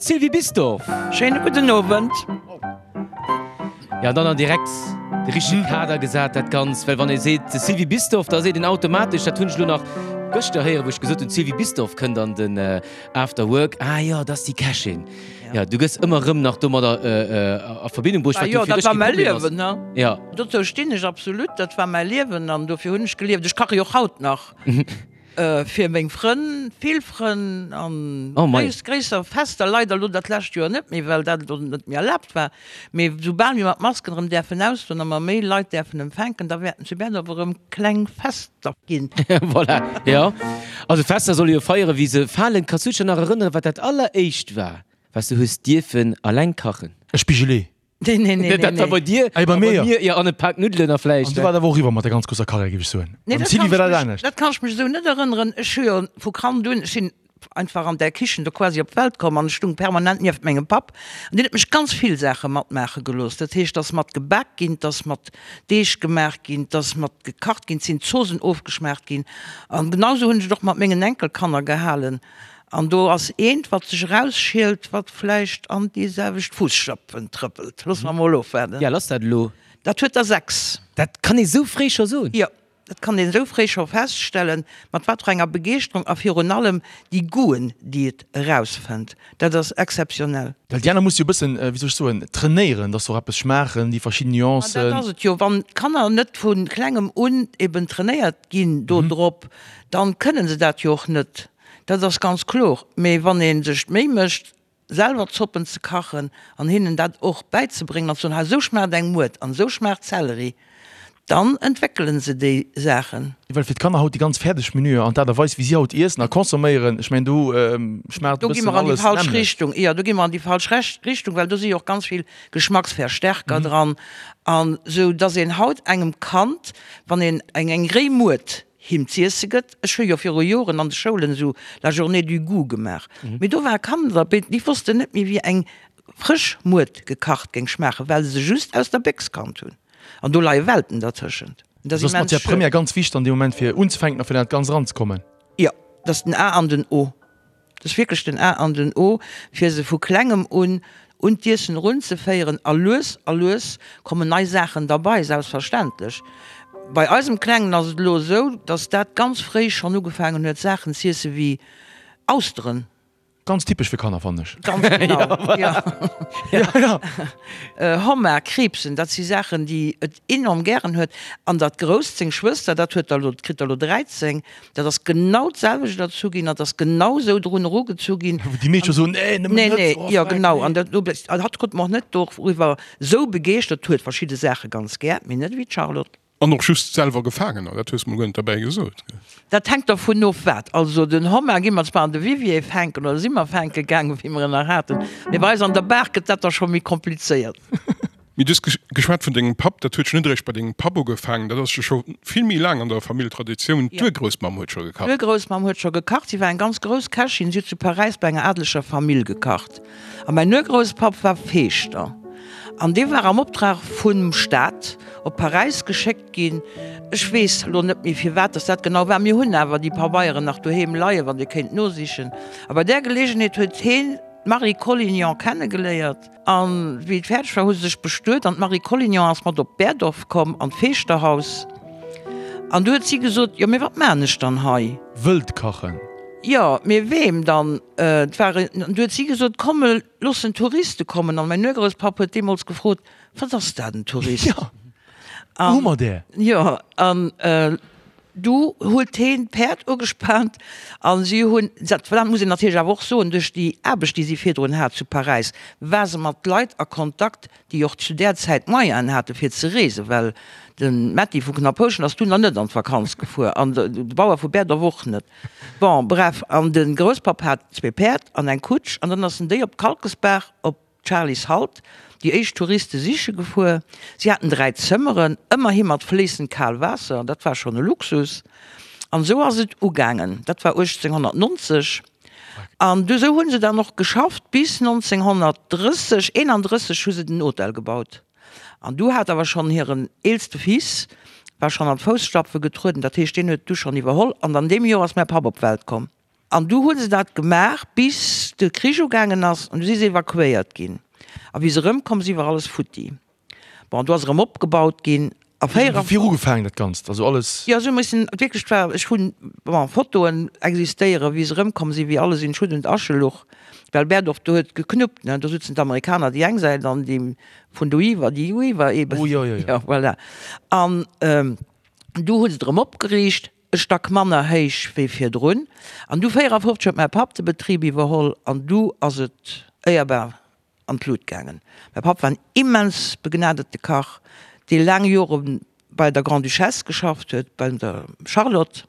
D'Sylvie Bisdorff. Schéine gudden Owend. Ja, an dann an direkt de richtege Kader gesat dat Ganzt, well wann ee seet Sylvie Bisdorff, da seet een automatesch, dat hunn ech elo nach gëschter héieren, wou ech gesot hunn, d'Sylvie Bisdorff kënnt an den After Work, ah jo, dat ass déi Kächin. Ja, du gëss ëmmer erëm nach domadder a Verbindung bruecht, wat jo fir dech kee Problem ass. Ne? Ja. Dozou stinn ech absolut, dat war mäi Liewen an dofir hunn ech gelieft. Ech kache jo och haut nach. Fir meng Frënn, vill Frënn an gréisser Fester, leider elo dat lescht Joer net méi, well dat elo net méi erlaabt war, mee soubal mir mat Masken erëm däerfen ausgoen a mer méi Leit däerfen empfänken, da wäerten zu Berdorf erëm kleng Fester ginn. Voilà, jo. Also Fester solle jo feieren, wéi se falen. Kanns du dech nach erënneren, wat dat alleréischt war, wat s du hues dierfen alleng kachen? E Spigelet. Nee, nee, nee, Dat war nee. bei dir, Ey, bei a mir, bei mir, ja, an e Pak Nuddelen a vläicht. An du war dat awer och eriwwer mat der ganz grousser Karriär, géif ech soen. Nee, Beim dat Sylvie kann war ech dat mech, anescht. dat kann ech mech esou net erënneren. Ech hu jo vu Kand un, ech sinn einfach an där Kichen do quasi op d'Welt komm an ech stung permanent nieft mengem Papp an deen huet mech ganz vill Saache matmaache gelooss. Dat heescht, 't ass mat gebak ginn, 't ass mat Deeg gemaach ginn, 't ass mat gekacht ginn, 't sinn d'Zoosen ofgeschmaacht ginn an genau esou hunn ech et och mat mengen Enkelkanner gehalen. An do ass eent, wat sech erausschielt, wat vläicht an déi selwecht Fusstapfen trëppelt. Loosse mer mol ofwaarden. Ja, lass dat elo. Dat huet der 6. Dat kann ee sou fréi scho soen? Jo, dat kann een esou fréi scho feststellen, mat wat fir enger Begeeschterung a virun allem déi Goûten, déi et erausfënnt. Dat ass exzeptionell. Well déi aner muss jo e bëssen, wéi soll ech soen, trainéieren, dass se och eppes schmaachen, déi verschidden Nuancen. Ma dat ass et jo. Wann d'Kanner net vu klengem un eben trainéiert ginn do drop, dann kënnen se dat jo och net. Dat ass ganz kloer. Mee wann ee sech d'Méi mécht, selwer Zoppen ze kachen an hinnen dat och bäizebréngen an ze soen, hei esou schmaacht eng Muert an esou schmaacht Zelleri, dann entwéckele se déi Saachen. Well fir d'Kanner haut déi ganz fäerdeg Menüer an d'Aart a Weis wéi si haut iessen a consomméieren, ech mengen do schmaacht e Do gi bëssen mer an déi alles falsch d'nämmlecht. Richtung. Jo, do gi mer an déi falsch Richtung, well do si jo och ganz vill Geschmacksverstärker dran an esou dass een haut engem Kand, wann een eng eng réi Muert him z'iesse gëtt. Ech hu jo viru Joren an de Schoulen esou la journée du goût gemaach, mee do ware Kanner derbäi, déi wossten net méi wéi eng frësch Muert gekacht géing schmaachen, well se se just aus der Béchs kannt hunn. An do leie Welten dertëschent. Dat ass immens Matière première ganz wichteg an deem Moment fir unzefänken a fir an dat Ganzt eranzekommen. Jo, dat ass den A an den O. Dat ass wierklech den A an den O, fir se vu Klengem un un d'Iessen erunzeféieren. A lues a lues kommen nei Saachen derbei, selbstverständlech. Bei eisem Klengen ass et elo esou, dass dat ganz fréi schonn ugefaangen huet, Saachen z'iesse wéi Austeren. Ganz typesch fir Kanner, fannen ech. Ganz genau, jo. Ja, ja. Homard, Kriibsen, dat si Saachen, déi et enorm gären huet. An dat Grousst, seng Schwëster, dat huet der elo, kritt der elo 13, Dat ass genau d'selwecht erzu ginn, dat ass genau esou drun erugezu ginn. Wou déi meescht jo soen, Nee, nëmmen Nee, net, nee, oh, jo fuck, genau. nee. An dat, an hatt krut mer och net doriwwer esou begeeschtert, huet verschidde Saache ganz gär, mee net ewéi d'Charlotte. An och just selwer gefaangen, dat hues de mol guer net derbäi gesot. Dat hänkt dervun of wat. Also den Homard gi mer zwar an de Vivier fänken, oder si mer fänke gaangen, wéi mer en nach haten, mee bei eis an der Baach gëtt dat da scho méi komplizéiert. Mee du hues geschwat vun dengem Papp, dat huet jo net eréischt bei dengem Papp ugefaangen, dat ass jo scho vill méi laang an der Famill Traditioun. D'Urgroussmamm huet scho gekacht. D'Urgroussmamm huet scho gekacht. Si war eng ganz grouss Kächin. Si huet zu Paräis bei enger adeleger Famill gekacht. A mäin Urgrousspapp war Feeschter an dee war am Optrag vum Staat op Paräis geschéckt ginn. Ech weess elo net méi firwat dass dat genau war. Mir hunn awer déi Pabeieren nach doheem leien, wann Dir kéint nosichen. A bei där Geleegenheet huet heen d'Marie Collignon kennegeléiert. An wéi et fäerdeg war, hu se sech bestuet an d'Marie Collignon ass mat op Berdorf komm, an d'Feeschterhaus. An du huet si gesot, Jo, mee wat maan ech dann hei? Wëllt kachen. Jo, mee weem dann? Et war en. An du huet si gesot, Komm, looss en Touriste kommen. An mäin Urgrousspapp huet deemools gefrot, Wat ass dat, en Tourist? Jo, wou hu mer där? Jo, an Du huet heen d'Päerd ugespaant an si hunn, dat muss een natierlech awer och soen, duerch déi Aarbecht, déi si virdrun hat zu Paräis, war se mat Leit a Kontakt, déi och zu där Zäit d'Moyenen hate fir ze reesen, well de Metty vu Knapphouschen ass dunn nach net an d'Vakanz gefuer an de Bauer vu Berdorf och net. Bon, bref, an de Grousspapp hat zwee Päerd an eng Kutsch an dann ass en déi op d'Kalkesbaach op Charly's Halt déi éischt Touriste siche gefuer. Si haten 3 Zëmmeren, ëmmerhi mat fléissend kal Waasser, dat war schonn e Luxus. An esou ass et ugaangen, dat war 1890. An du esou hu se dann och geschafft bis 1930, 31 hu se den Hotel gebaut. An du hat awer schonn hiren eelste Fils war schonn an d'Fousstapfe getrueden, dat heescht deen huet du schonn iwwerholl. An an deem Joer ass mäi Papp op d'Welt komm. An du hu se dat gemaach, bis de Krich ugaangen ass, an du si se evakuéiert ginn. A wéi se erëmkomm si war alles futti. Bon, do ass erëm opgebaut ginn. A 54. Wéi ugefaangen dat Ganzt, also alles. Jo, se hu missen, wierklech, et war, ech hunn, bon, Fotoen existéieren, wéi se erëmkomm sinn, wéi alles in Schutt und Asche luch, well Berdorf, do huet geknuppt, ne, do sutzen d'Amerikaner déi eng Säit an déi vun doiwwer déi uiwwer eben. Oh jo, jo, jo. Jo, voilà. An du hu se et erëm opgeriicht. E Stack manner héich wéi virdrun. An du 54 huet mäi Papp de Betrib iwwerholl an du ass et éierbar an d'Lut gaangen. Mäi Papp war en immens begnadete Kach, dee laang Jore bei der Grande-Duchesse geschafft huet, bei der Charlotte.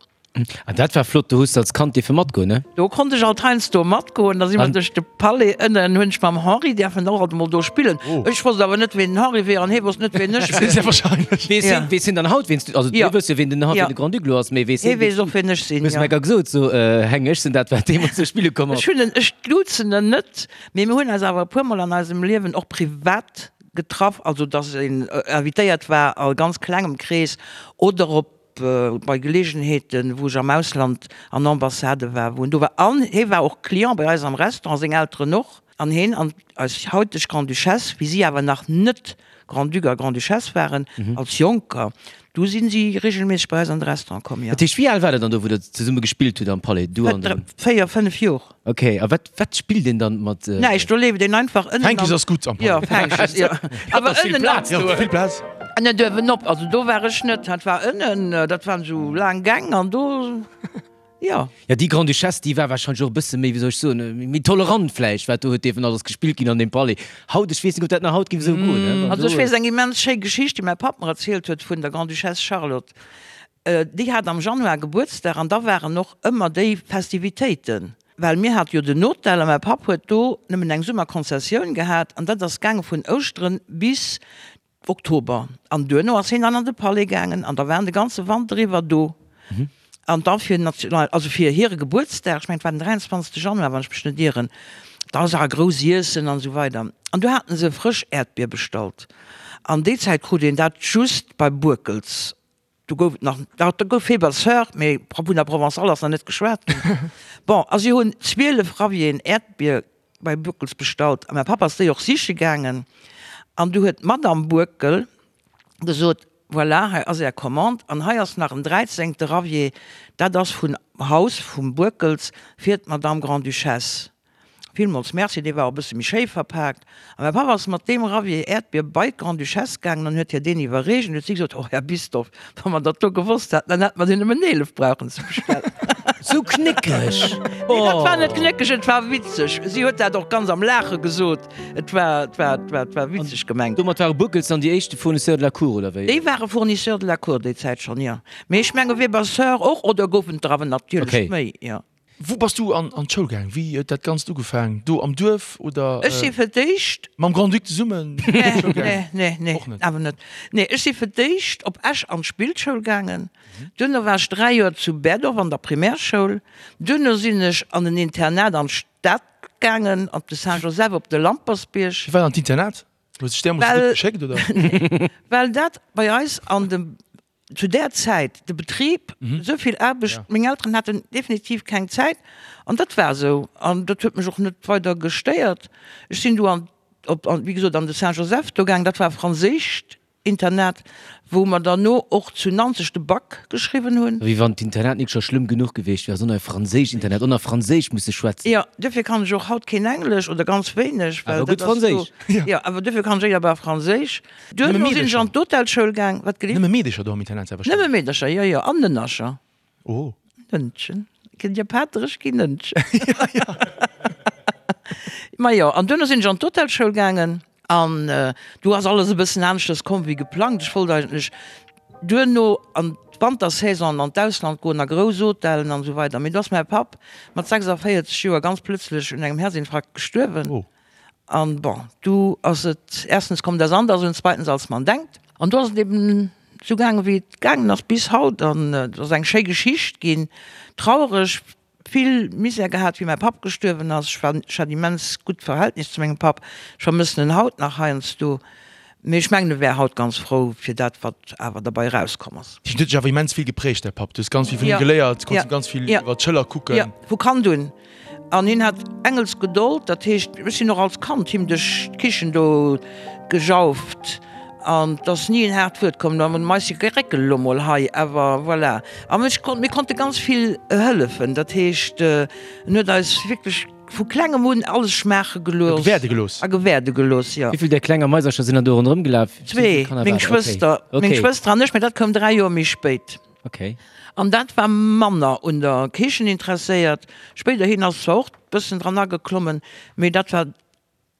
An dat war flott, do hues de als Kand dierfe matgoen, ne? Do konnt ech alt heiansdo matgoen, da si mer duerch de Palais ënnen, hunn ech mam Henri däerfen och alt emol do spillen. Ech wosst awer net, ween den Henri wier an hee wosst net, ween ech wier. Sehr wahrscheinlech. Weess hien, weess hien dann haut, ween s du, also du wëss jo, ween den Henri, ween de Grand-Duc elo ass, mee weess hien, Hee weess och, ween ech sinn, jo. Hues mer gesot, so, Heng, ech sinn dat, wat deemools do spille komm ass. Ech hunn en, ech duzen en net, mee mir hunn eis awer e puermol an eisem Liewen och privat getraff, also dass een invitéiert war a ganz klengem Krees oder op bei Geleegenheeten, wou ech am Ausland an Ambassade war, wou en do war. An hie war och Client bei eis am Restaurant, seng Elteren och. An hien an eis hauteg Grande-Duchesse, wéi si awer nach net Grand-Duc a Grande-Duchesse waren, als Jonker, du si si regelméisseg bei eis an de Restaurant komm, jo. Dat heescht, wéi al war der dann do, wou der zesumme gespillt hutt am Palais, du an den. 4, 5 Jor. Ok, a wat, wat spillt een dann mat. Näischt, do leeft een einfach ënnen. Fänkes ass gutt am Palais. Jo, Fänkes, jo. Awer ënnen. Vill Plaz do. Vill Plaz. Ënnen duerwen op, also do war ech net, dat war ënnen, dat waren esou laang Gäng an do, jo. Jo, déi Grande-Duchesse, déi war warscheinlech och e bësse méi, wéi soll ech soen, méi tolerant vläicht, wat do huet dierfen alles gespillt ginn an deem Palais. Haut, ech weess net, ob dat nach haut géif esou goen, ne? Also ech weess eng immens schéi Geschicht, déi mäi Papp mer erzielt huet vun der Grande-Duchesse Charlotte. Déi hat am Januar Gebuertsdag an da waren och ëmmer déi Festivitéiten, well mir hate jo den Hotel a mäi Papp huet do nëmmen eng Summerkonzessioun gehat an dat ass gaange vun Ouschteren bis Oktober an duerno ass hien dann an de Palais gaangen an da waren de ganze Wanter iwwer do an da fir national, also fir hire Gebuertsdag, ech mengen et war den 23. Januar, wann ech mech net ieren, da war grouss Iessen an esou weider an du haten se frësch Äerdbier bestallt an déi Zäit krut een dat just bei Boeckels. Do gouf et nach, do gouf Weber Sœur, mee vun der Provençale ass nach net geschwat ginn. Bon, a si hunn 12 Ravien Äerdbier bei Boeckels bestallt a mäi Papp ass déi och siche gaangen an du huet d'Madame Boeckel gesot, Voilà, hei ass Är Commande an hei ass nach en dräizéngte Ravier, dat ass vun Haus vum Boeckels fir d'Madame Grande-Duchesse. Villmools Merci, dee war och e bësse méi schéi verpaakt. A mäi Papp ass mat deem Ravier Äerdbier bei d'Grande-Duchesse gaangen an huet hir deen iwwerreecht. An huet si gesot, Oh, Här Bisdorff, wa mer dat do gewosst hätten, dann hätte mer der nëmmen 11 brauchen ze bestellen. Sou knéckeg! Nee, dat war net knéckeg, et war witzeg. Si huet dat och ganz am Laache gesot. Et war, et war, et war, et war witzeg gemengt. Domat ware Boeckels dann déi éischte Fournisseurs de la Cour, oder wéi? Déi ware Fournisseurs de la Cour déi Zäit schonn, jo. Mee ech menge Weber Soeurs och, oder goufen et der awer natierlech méi, jo. Wou bass du an an d'Schoul gaang? Wéi huet dat Ganzt ugefaang? Do am Duerf oder? Ech si fir d'éischt. Mam Grand-Duc zesummen an d'Schoul gaang? Nee, nee, nee, awer net. Nee, ech si fir d'éischt op Esch an d'Spillschoul gaangen. Duerno war ech 3 Joer zu Berdorf an der Primärschoul. Duerno sinn ech an en Internat an d'Stad gaangen, op de Saint-Joseph op de Lampersbierg. Firwat an d'Internat? Huet sech deemools gutt geschéckt, oder? Well dat bei eis an dem zu där Zäit de Betrib, esou vill Aarbecht, meng Elteren haten definitiv keng Zäit an dat war esou an dat huet mech och net weider gestéiert. Ech sinn du an op an wéi gesot an de Saint-Joseph do gaang, dat war e franséischt Internat, wou mer derno och zu Nanzeg de Bac geschriwwen hunn. Wéi wann d'Internat nik scho schlëmm genuch gewiescht wär, sondern e franséischt Internat, och nach franséisch musse schwätzen. Jo, duerfir kann ech och haut keen Englesch oder ganz wéineg, well Awer gutt dat ass do, Franséisch. Jo, awer duerfir kann ech éierbar Franséisch. Duerno sinn ech an d'Hotelschoul gaang. Wat gelift? Nëmme Meedecher do am Internat selbstverständlech? Nëmme Meedercher, jo, jo, an Nënnercher. Oh. Nënnchen. Kënnt Dir Paterech ginn, Nënnchen. Ja, ja. Majo, an duerno sinn ech an d'Hotelschoul gaangen an do ass alles e bëssen aneschters komm wéi geplangt. Ech wollt eigentlech duerno an d'Wantersaison an d'Ausland goen, a grouss Hotellen an esou weider. Mee do ass mäi Papp mat 46 Joer ganz plëtzlech un engem Herzinfarkt gestuerwen. Oh. An bon, du ass et erstens kommt das anders und zweitens als man denkt. An do ass et eben esou gaangen, wéi et gaangen ass bis haut. An et ass eng schéi Geschicht ginn. Traureg, vill Misär gehat, wéi mäi Papp gestuerwen ass. Ech war, ech hat immens gutt Verhältnis zu mengem Papp. Ech vermëssen en haut nach heiansdo. Mee ech mengen, e wär haut ganz frou fir dat, wat awer derbei erauskomm ass. Hien huet dech awer immens vill geprägt, däi Papp. Du hues ganz vill vun him geléiert, konns him ganz vill iwwer d'Schëller kucken. Jo, vu Kand un. An hien hat Engelsgedold, dat heescht, ech sinn och als Kand him duerch d'Kichen do gejauft an 't ass ni en haart Wuert komm. Da mais je geréckel elo mol hei, awer voilà. An ech konnt, mir konnte ganz vill hëllefen, dat heescht, en huet eis wierklech vu klengem un alles schmaache gelooss. A gewäerde gelooss. A gewäerde gelooss, jo. Wéi vill där klenger Maisercher sinn dann do ronderëm gelaf? Zwee, meng Schwëster, meng Schwëster an ech, mä dat koum 3 Joer méi spéit. Okay. An dat war manner un der Kichen interesséiert. Spéiderhin ass zwar och bëssen dran ageklommen, mee dat war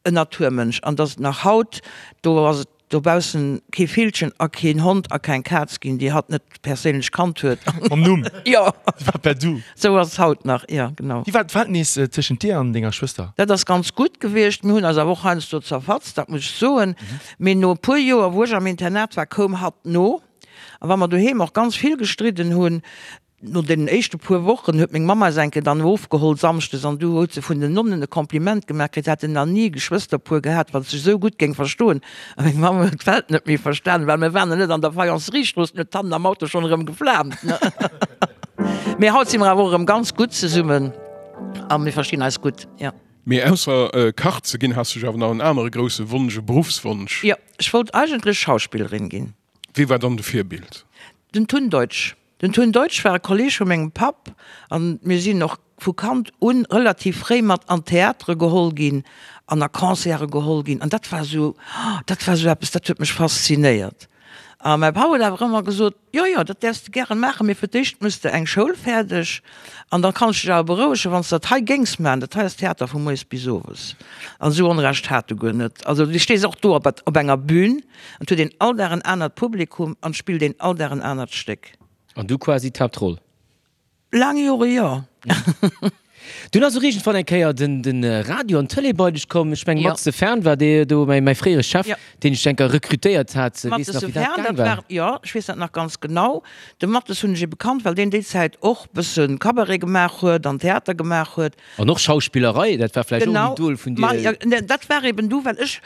en Naturmënsch. An dass et nach haut, do ass et dobaussen kee Villchen a keen Hond a keng Kaz ginn, déi hatt net perséinlech kannt huet. Mam Numm. Jo. Si war per Du. Sou ass et haut nach, jo, genau. Wéi war d'Verhältnis tëschent dir an denger Schwëster? Dat ass ganz gutt gewiescht. Mir hunn eis awer och heiansdo zerfatzt, dat muss ech soen. Mee no e puer Joer, wou ech am Internat war, koum hatt no. A wa mer doheem och ganz vill gestridden hunn, no deenen éischte puer Wochen huet meng Mamm eis eng Kéier dann ofgeholl samschdes an du huet se vun den Nonnen e Kompliment gemaach kritt, se hätten nach ni e Geschwësterpuer gehat, wat sech esou gutt géing verstoen. A meng Mamm huet d'Welt net méi verstanen, well mir waren nach net an der Faïenceriestrooss, huet hannen am Auto schonn erëm geflaamt. Mee haut si mer awer och erëm ganz gutt zesummen a mir verstinn eis gutt, jo. Mee ausser Kach ze ginn, has du jo awer nach en anere grousse Wonsch, e Beruffswonsch. Jo, ech wollt eigentlech Schauspillerin ginn. Wie war dann de Virbild? Den Tun Deutsch. Den Tun Deutsch war e Kolleg vu mengem Papp an mir sinn och vu Kand un relativ fréi mat an d'Theatere geholl ginn an a Concerte geholl ginn an dat war esou, dat war esou eppes, dat huet mech faszinéiert. A mäi Papp huet awer ëmmer gesot, Jo, jo, dat däerfs de gären maachen, mee fir d'éischt muss de eng Schoul fäerdeg an da kann ech dech awer berouegen, wann s de dat hei géings maachen, dat hei ass Theater vu moies bis owes. An esou Onrecht hat e guer net. Also du stees och do op op enger Bühn an 't huet een all Dag en anert Publikum an 't spillt een all Dag en anert Stéck. An du quasi d'Haaptroll? Laang Jore jo. Dunn ass och iergendwann eng Kéier den Radio an d'Tëlee bei dech komm. Ech mengen Max de Fern war dee do, mäi fréiere Chef, deen ech enker rekrutéiert hat. Weess nach wéi dat gaang war? Jo, ech weess dat nach ganz genau. De Mattes hunn ech ebe kannt, well deen déi Zäit och bësse Cabaret gemaach huet an Theater gemaach huet. An och Schauspillerei, dat war vläicht och en Idol vun dir? Genau, dat war eben du, well ech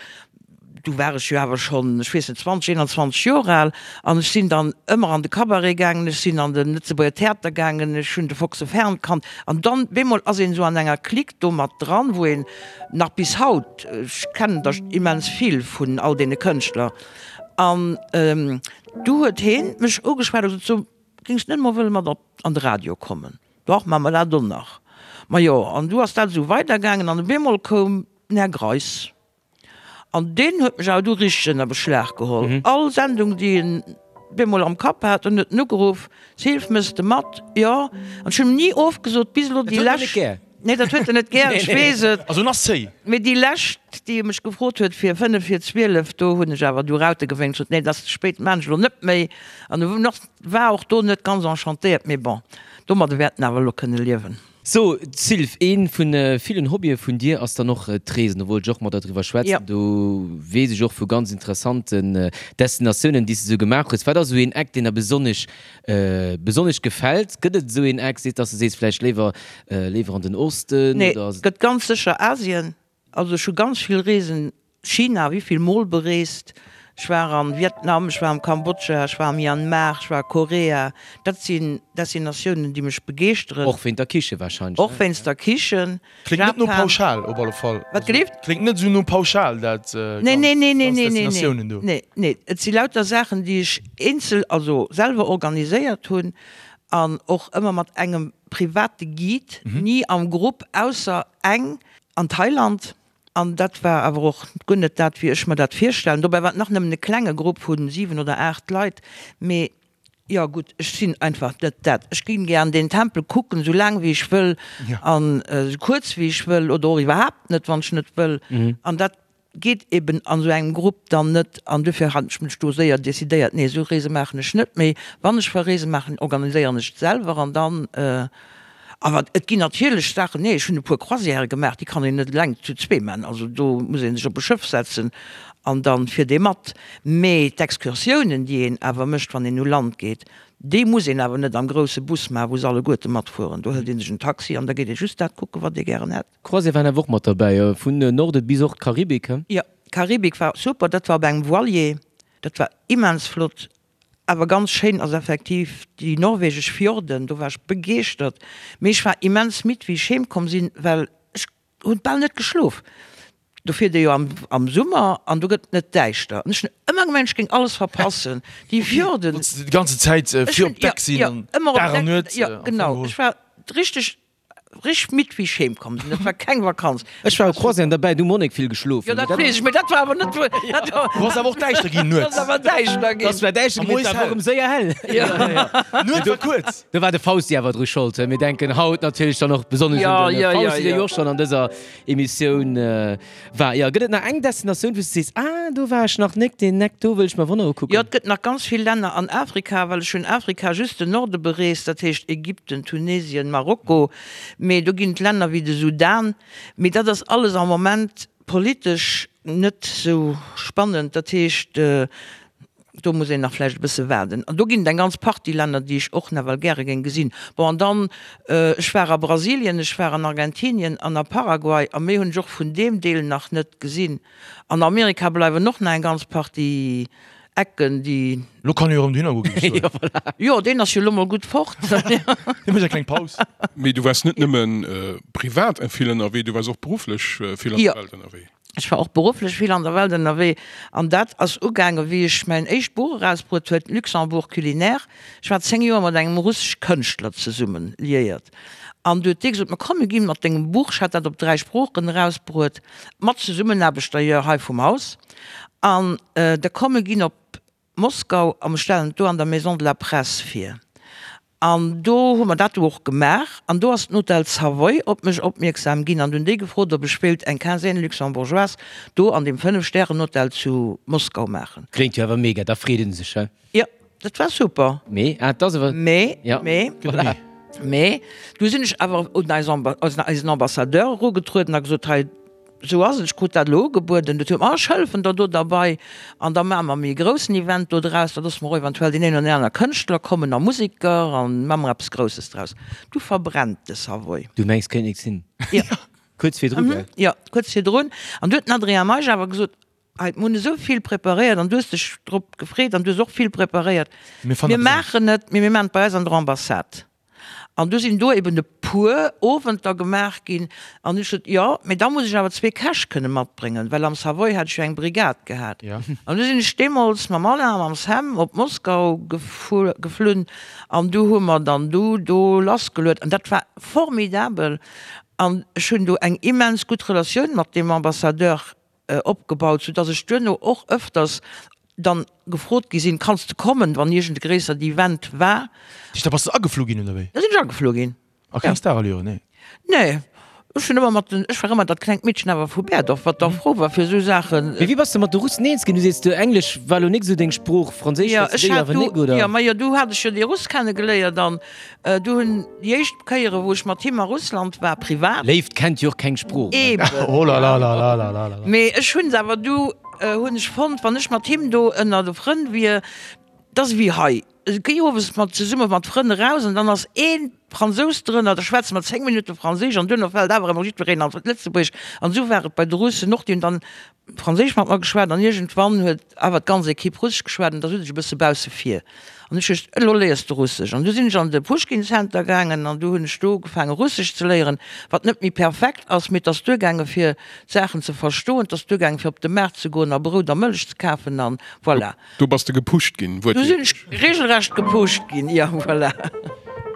Du war ech jo awer schonn, ech weess net, 20, 21 Joer al an ech sinn dann ëmmer an de Cabaret gaangen, ech sinn an de Lëtzebuerger Theater gaangen, ech hunn de Foxe Fern kannt an dann bemol ass een esou an enger Clique do mat dran, wou een nach bis haut, ech kennen der immens vill vun all deene Kënschtler an du huet heen mech ugeschwat a gesot, so géings de net mol wëlle mat op an de Radio kommen? Dach, maache mer dat och nach. Majo, an du ass dat esou weidergaangen an op eemol koum den Här Greis. An deen huet mech awer du richteg ënner Beschlag geholl. All Sendung, déi en bemol am Kapp hat, en huet en ugeruff, Sylv, mëss de mat? Jo. An ech hunn em ni ofgesot, bis elo déi lescht. Nee, dat huet en net gär, ech weess et. Also en ass zéi. Mee déi lescht, déi e mech gefrot huet fir 5 vir 12, do hunn ech awer du Raute gewénkt, sot, nee, dat ass ze spéit, maan ech elo net méi. An e war och do net ganz enchantéiert, mee bon, domadde wäert en awer elo kënne liewen. So, Sylv, ee vu villen Hobbye vun dir ass dann och d'Reesen. Do wollt ech och mat der driwwer schwätzen. Do weess ech och vu ganz interessanten Destinatiounen, déi s de sou gemaach hues. Wat ass esou een Eck, deen der besonnesch, besonnesch gefält? Gëtt et esou een Eck, seet, dass de sees, vläicht léiwer, léiwer an den Osten Nee, oder? gëtt ganz sécher Asien. Also ech hu ganz vill Reesen, China wéivill mol bereest, ech war an Vietnam, ech war am Kambodscha, ech war am Myanmar, ech war a Korea. Dat sinn Destinatiounen déi mech begeeschteren. Och wéint der Kiche wahrscheinlech, ne? Och wéinst der Kichen. Kléngt net no pauschal op alle Fall. Wat gelift? Kléngt net esou no pauschal dat Nee, nee, nee, nee, nee, nee, Destinatiounen do. Nee, nee, et si lauter Saachen déi ech eenzel, also selwer organiséiert hunn an och ëmmer mat engem private Guide, ni am Grupp, ausser eng an Thailand, an dat war awer och guer net dat, wéi ech mer dat virstellen. Dobäi war et nach nëmmen e klenge Grupp vu 7 oder 8 Leit, mee jo gutt, ech sinn einfach net dat. Ech ginn gär an deen Tempel kucken, esou laang wéi ech wëll an esou kuerz wéi ech wëll oder och iwwerhaapt net, wann ech net wëll. An dat geet eben an esou engem Grupp dann net an dofir hat ech mech do séier decidéiert, nee esou Reese maachen ech net méi. Wann ech Reese maachen, organiséieren ech et selwer an dann, awer et ginn natierlech Saachen, nee ech hunn e puer Croisièrë gemaach, déi kann een net eleng zu zwee maachen, also do muss ee sech op e Schëff setzen an dann fiert ee mat. Mee d'Excursiounen déi een awer mécht wann een u Land geet, déi muss een awer net am grousse Bus maachen, wou se alleguerte matfueren, do hëlt ee sech en Taxi an da geet ee just dat kucken wat ee gären hätt. Croisière waren awer och mat derbäi, vun Norden bis och d'Karibik, he? Jo. Karibik war super, dat war op engem Voilier, dat war immens flott. Awer ganz schéin ass effektiv déi norwegesch Fjorden, do war ech begeeschtert. Mee ech war immens midd wéi ech heem komm sinn, well ech hunn bal net geschlof. Do fiert ee jo am am Summer an do gëtt et net däischter. An ech hunn ëmmer gemengt ech géing alles verpassen. Déi Fjorden. Wollts de déi ganze Zäit fir op Deck sinn an Dag an Nuet? Jo genau, ech war richteg Richteg midd wéi ech heem komm sinn. Dat war keng Vakanz. Ech war op Croisièren derbäi, du Monique vill geschlof. Jo dat weess ech, mee dat war awer net wou. Do ass awer och däischter ginn nuets. Dat ass awer däischter ginn. Dat war däischter ginn, mee et war och erëm séier hell. D'Nuet war kuerz. Do war de Fausti awer dru Schold. Mir denken haut natierlech dann och besonnesch un de Fausti, dee jo och schonn an dëser Emissioun War, jo. Gëtt et nach eng Destinatioun, wou s de sees, ah, do war ech nach nek, deen Eck do wëll ech mer wonner ukucken? Jo, et gëtt nach ganz vill Länner an Afrika, well ech hunn Afrika just den Norde bereest, dat heescht Ägypten, Tunesien, Marokko, mee do ginn et Länner wéi de Sudan, mee dat ass alles am Moment politesch net sou spannend, dat heescht, Do muss een nach vläicht e bësse waarden. An do ginn et eng ganz Partie Länner, déi ech och nawell gäre géing gesinn. Bon, an dann, ech war a Brasilien, ech war an Argentinien an a Paraguay, a méi hunn ech och vun deem Deel nach net gesinn. An Amerika bleiwen och nach eng ganz Partie Ecken, déi. Lo kann e jo erëm dohinner goen, géif ech soen. Jo, deen ass jo lo mol gutt fort. Dee mécht eng kleng Paus. Mee du waars net nëmme privat vill ënnerwee, du waars och berufflech vill an der Welt ënnerwee. Ech war och berufflech vill an der Welt ënnerwee an dat ass ugaangen, wéi ech mäin éischt Buch erausbruet huet, Luxembourg culinaire. Ech war 10 Joer mat engem russesch Kënschtler zesummen liéiert an du huet dee gesot, Ma komm, mir ginn mat dengem Buch, ech hat dat op 3 Sproochen erausbruet, mat Zesummenaarbecht d'ailleurs hei vum Haus, an da komm, mir ginn op Moskau a mir stellen et do an der Maison de la Presse vir. An do hu mer dat du och gemaach. An do ass den Hotel Savoy op mech opmierksam ginn an hunn déi gefrot, ob ech wéilt eng Quinzaine luxembourgeoise do an deem Fënnef-Stären-Hotel zu Moskau maachen. Kléngt jo awer mega, da freet een sech, he? Jo, dat war super. Mee, ah, et ass awer. Mee, Ja, mee, voilà. mee, du sinn ech awer un eis Amba, eisen Ambassadeur erugetrueden a gesot, hei, Sou ass et, ech krut dat elo ugebueden, dat huet mer, ech hëllefen der do derbei an da maache mer méi e groussen Event do draus, da loosse mer och eventuell deen een oder deen aner Kënschtler kommen a Museker an maache mer eppes Grousses draus. Du verbrennt de Savoy. Du mengs, kéint nix sinn. Jo. Kuerz virdru, gell? Jo, kuerz virdrun. An du huet den Adrien Meisch awer gesot, Hei, mir hunn esou vill preparéiert an du hues dech drop gefreet an du hues och vill preparéiert. Mir maachen et, mee mir maachen et bei eis an der Ambassade. An du sinn do eben e puer Owenter gemaach ginn. An ech sot, Jo, mee da muss ech awer zwee Käch kënne matbréngen, well am Savoy hat ech jo eng Brigad gehat. An du sinn ech deemools mam Alain a mam Sam op Moskau geflunn an du hu mer dann du do lassgeluet. An dat war formidabel. An ech hunn do eng immens gutt Relatioun mat deem Ambassadeur opgebaut, sou dass ech duerno och ëfters dann gefrot gi sinn, kanns de kommen, wann iergend e gréissert Event war. Da bass de ageflu ginn, oder wéi? Da sinn ech ageflu ginn. A keng Starallüren, nee? Nee, ech hunn ëmmer mat den, ech war ëmmer dat klengt Meedchen awer vu Berdorf, wat da frou war fir esou Saachen. Mee wéi bass de mat de Russen eens ginn? Du sees, du Englesch war lo nik esou deng Sprooch, Franséisch Jo, schwätz ech de hat awer du, nik, oder? jo, ma jo, du hat ech jo dee Russ kenne geléiert an Du hunn déi éischt Kéiere wou ech mat him a Russland war, privat. Léift kennt jo och keng Sprooch. Eben. Oh la la la la la la la. Mee ech hunn se awer du hunn ech fonnt, wann ech mat him do ënner de Frënn wier, dat ass ewéi hei, géi owes mat zesumme mat Frënn eraus an dann ass ee Fransous drënner, da schwätze mer 10 Minutte Franséisch an duerno fält awer ëmmer jiddwereen an d'Lëtzebuergesch. An esou war et bei de Russen och, déi hunn dann Franséisch mat mer geschwat an iergendwann huet awer d'ganz Equipe Russesch geschwat an da sot ech e bësse bausse vir an ech huet, elo léiers de Russesch. An du sinn ech an de Puschkin Center gaangen an du hunn ech do ugefaange Russesch ze léieren, wat net méi perfekt ass, mee et ass duergaange fir d'Saachen ze verstoen, et ass duergaange fir op de Maart ze goen a Brout a Mëllech ze kafen an voilà. Do bass de gepusht ginn, wuertwiertlech. Do sinn ech regelrecht gepusht ginn, jo, voilà.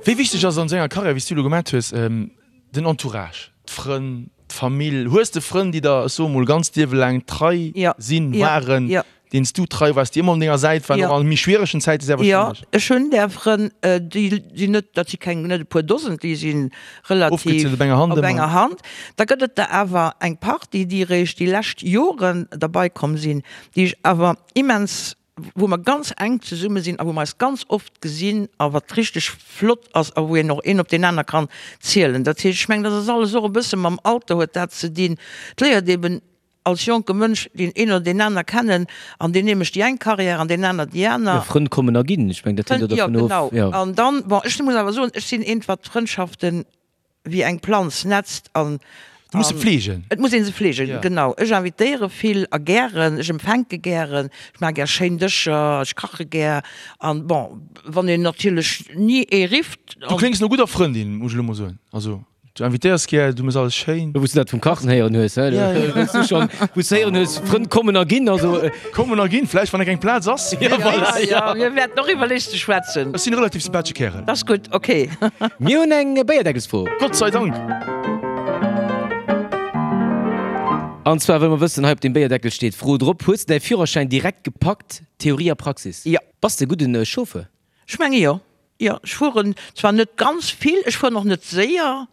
Wéi wichteg ass an esou enger Karriär, wéi s du elo gemat hues, Den Entourage, d'Frënn, d'Famill, hues de Frënn, déi der, ech soe mol, ganz d'Liewe laang trei sinn, waren, deenen s du trei waars, déi ëmmer un denger Säit waren, och a méi schwieregen Zäite sehr wahrscheinlech? Jo, ech hunn där Frënn, déi sinn net, dat si keng, net e puer Dosen, déi si relativ. Ofgezielt op enger Hand ëmmer. Op enger Hand. Da gëtt et der awer eng Partie, déi eréischt déi lescht Joren derbei komm sinn, déi ech awer immens wou mer ganz enk zesumme sinn a wou mer eis ganz oft gesinn a wat richteg flott ass a wou een och een op deen aner kann zielen. Dat heescht, ech mengen, dat ass alles och e bësse mam Alter huet dat ze dinn. Et léiert eben als jonke Mënsch deen een oder deen aner kennen an deen ee mécht déi eng Carrière an deen aner déi aner. Jo, Frënn kommen a ginn, ech mengen, dat hänkt och Jo, dervun of. genau. Jo. An dann, bon, ech muss awer soen, ech sinn eent, wat Frëndschaften wéi eng Planz netzt an. Du muss se fleegen. Et muss ee se fleegen, genau. Ech invitéiere vill a gären, ech empfänke gären, ech maache gär schéin Dëscher, ech kache gär. An bon, wann een natierlech ni ee rifft. Du kléngs no gudder Frëndin, muss ech elo mol soen. Also, du invitéiers gär, du méchs alles schéin. Wou s du dat vum Kachen héieren hues, he? Wou s du schonn, wou s du héieren hues, Frënn kommen a ginn, also. Kommen a ginn, vläicht, wann eng keng Plaz ass. Ja, voilà, ja. Mir wäerten och iwwer lech ze schwätzen. Ech sinn e relativ sympathesche Kärel. Dat ass gutt, ok. Mir hunn eng Béierdeckelsfro. Gott sei Dank! An zwar wëlle mer wëssen, hei op deem Béierdeckel steet d'Fro drop, Hues de däi Führerschäin direkt gepackt, Theorie a Praxis? Jo. Bass de e gudden Chauffeur? Ech menge jo. Jo, ech fueren zwar net ganz vill, ech fueren och net séier,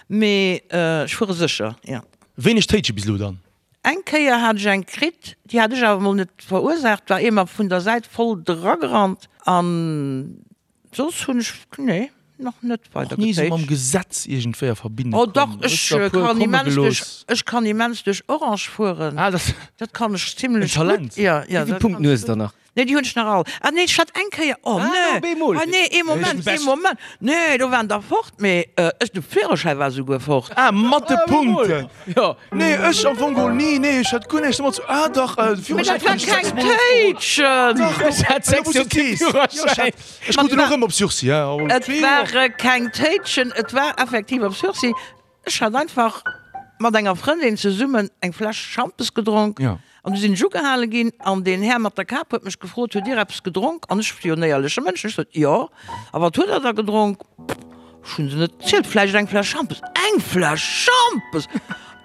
mee ech fuere sécher, jo. Wéineg Téitsche bis elo dann? Eng Kéier hat ech eng kritt, déi hat ech awer mol net verursaacht, war ee mer vun der Säit voll dragerannt an Soss hunn ech, nee, nach net weider Och ni esou mam Gesetz iergendwéi a Verbindung Oh dach, komm? Hues ech der e puer kann komme immens duerch, gelooss? ech kann immens duerch Orange fueren. Ah, dat Dat kann ech zimlech En Talent. gutt. Ja, ja, Wéi vill dat Punkten kann ech hues de gutt. dann nach? Nee, déi hunn ech nach all. Ah nee, ech hat eng Kéier, oh Ah, nee, op eemol. ah nee, ee Moment, ee Moment, nee, do waren der fort, mee ech, de Führerschäi war souguer fort. Ah, mat de Ah, op eemol. Punkten. Jo. Nee, ech am Fong geholl ni, nee, ech hat guer näischt domat ze, ah dach, de Mee Führerschäin dat war krut ech keng sechsmol ofgeholl. Téitschen! Dach, Ech hat elo sechs wou s du Joer et kee sees. Jo, ech Führerschäin. hat, ech krut en och erëm op Sursis, hein, aber Et ware keng Téitschen, et war effektiv op Sursis. Ech hat einfach mat enger Frëndin zesummen eng Fläsch Schampes gedronk Ja. an du sinn ech ugehale ginn an deen Här mat der Kap huet mech gefrot, Hutt Dir eppes gedronk? An ech jo en éierleche Mënsch, ech sot, Jo. A wat hutt Der da gedronk? Ech hunn se net gezielt, vläicht eng Fläsch Schampes. Eng Fläsch Schampes!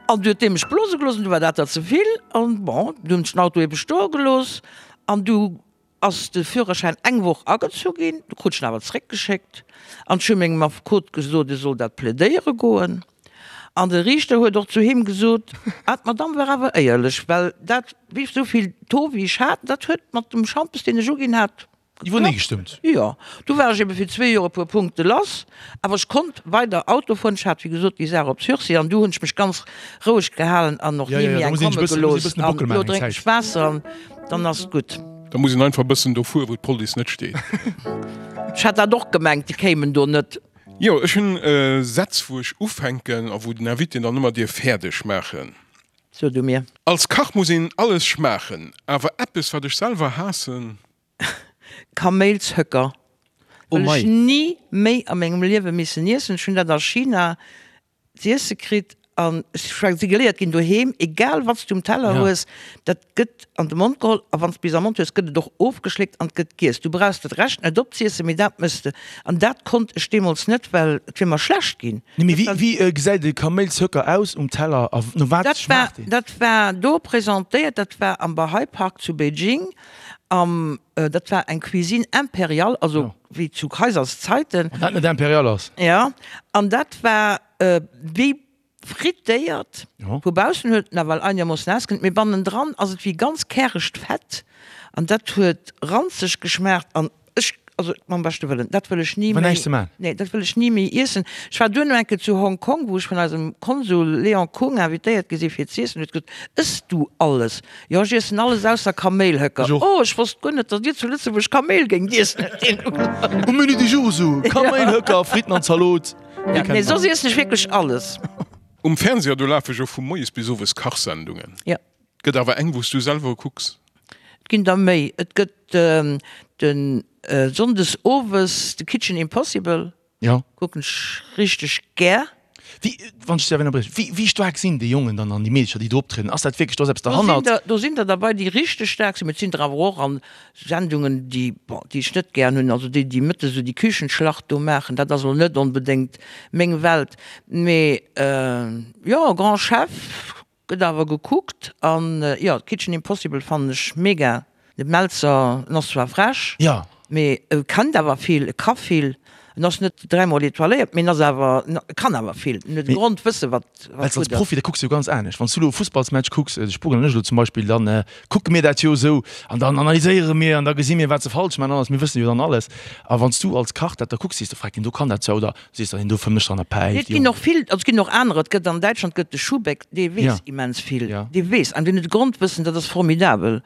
An du huet dee mech blose gelooss an du war dat der ze vill an bon, du hunn ech den Auto ebe stoe gelooss an du ass de Führerschäin eng Woch agezu ginn, du krut ech en awer zeréckgeschéckt an ech hu mengem Affekot gesot, e soll dat plädéiere goen an de Riichter huet och zu him gesot, ah d'Madame war awer éierlech, well dat wéi esou vill Taux wéi ech hat, dat huet mat dem Schampes deen ech uginn hat, Iwwernee gestëmmt. Jo, du war ech ebe fir zwee Joer e puer Punkte lass, awer ech konnt weider Auto fueren. Ech hat wéi gesot déi Saach op Sursis an du hunn ech mech ganz roueg gehalen an och Ja, ni ja, méi da eng muss een komme sech e bëssen, muss gelooss. een e bëssen de An Bockel elo maachen eng drénken ech Zäit. Waasser an dann ass et gutt. Da muss een einfach e bëssen do fueren, wou d'Police net steet. Ech hat dat och gemengt, déi kéimen do net. Jo, ech hunn Sätz, wou ech ufänken a wou den Invité dann ëmmer dierf fäerdeg maachen. So du mir. Als Kach muss een alles schmaachen, awer eppes wat ech selwer haassen. Kaméilshöcker Oh wëll ech mei. ni méi a mengem Liewe missen iessen. Ech hunn dat a China z'iesse kritt an ech si geléiert ginn doheem, egal wat s du um Teller Ja. hues, dat gëtt an de Mond geholl a wann s bis am Mond hues, gëtt et och ofgeschléckt an et gëtt giess. Du brauchs dat Rescht net opziessen, mee dat mëss de. An dat konnt ech deemools net, well et wier mer schlecht ginn. Nee, mee wéi, wéi gesäit e Kaméilshöcker aus um Teller a no wat Dat war, schmaacht deen? dat war do presentéiert, dat war am Bahai Park zu Beijing. Am, dat war eng Cuisine impériale, also wéi zu Kaiserszeiten. Wann dat net impérial ass. Ja, an dat war wéi frittéiert. Vu baussen huet et nawell einermoossen ausgesinn, mee bannendran ass et wéi ganz käregt Fett an dat huet ranzeg geschmaacht an ech, also mam beschte Wëllen, dat wëll ech ni War méi, näischt ze man. nee, dat wëll ech ni méi iessen. Ech war duerno eng Kéier zu Hong Kong, wou ech vun eisem Konsul Léon Kung invitéiert gi si fir z'iessen, huet gesot, Ëss du alles? Jo, ech iessen alles ausser Kaméilhöcker. Ech och. Oh, ech wosst guer net, datt dir zu Lëtzebuerg Kaméil géingt iessen, huet hien ugesot. Um Menu du jour esou, Kaméilhöcker, Fritten an Zalot. Ja, nee, soss iessen ech wierklech alles. Um Fernseher, do lafe jo vu moies bis owes Kachsendungen. Ja. Gëtt awer eng, wou s du selwer kucks? Et ginn der méi. Et gëtt de Sonndes owes de Kitchen Impossible. Ja. Kucken ech richteg gär. Wéi, wann ech dech ënnerbriechen, wéi, wéi staark sinn déi Jongen dann an déi Meedercher, déi do optrieden? Ass dat wierklech, do ass eppes Do sinn derhannert? der, do sinn der derbei, déi richteg staark sinn, mee et sinn der awer och an Sendungen, déi, bon, déi ech net gären hunn, also déi, déi mëttes esou déi Küchenschlacht do maachen, dat ass elo net onbedéngt meng Welt. Mee jo, Grand Chef Gëtt awer gekuckt an jo Kitchen Impossible fannen ech mega. De Melzer en ass zwar frech, mee e kennt awer vill, e ka vill. En ass net dräimol etoiléiert, mee en ass awer, e kann awer vill. En huet e Grondwësse wat Well s gutt als ass. Profi, da kucks de jo ganz anescht. Wann s du elo e Fussballsmatch kucks, de Spugel an ech elo zum Beispill, dann kucke mir dat jo esou an dann analyséiere mir an da gesi mir wat se falsch maachen an alles. Mir wësse jo dann alles. A wann s du als Kach dat da kucks, sees de, Freck, deen do kann dat zwar oder Sees der, deen do fëmmt dran a Nee, päift, et ginn och vill, also et ginn och anerer, et gëtt an Däitschland gëtt de Schuhbeck, dee weess Ja. immens vill, Ja. dee weess, an deen huet e Grondwëssen, dat ass formidabel.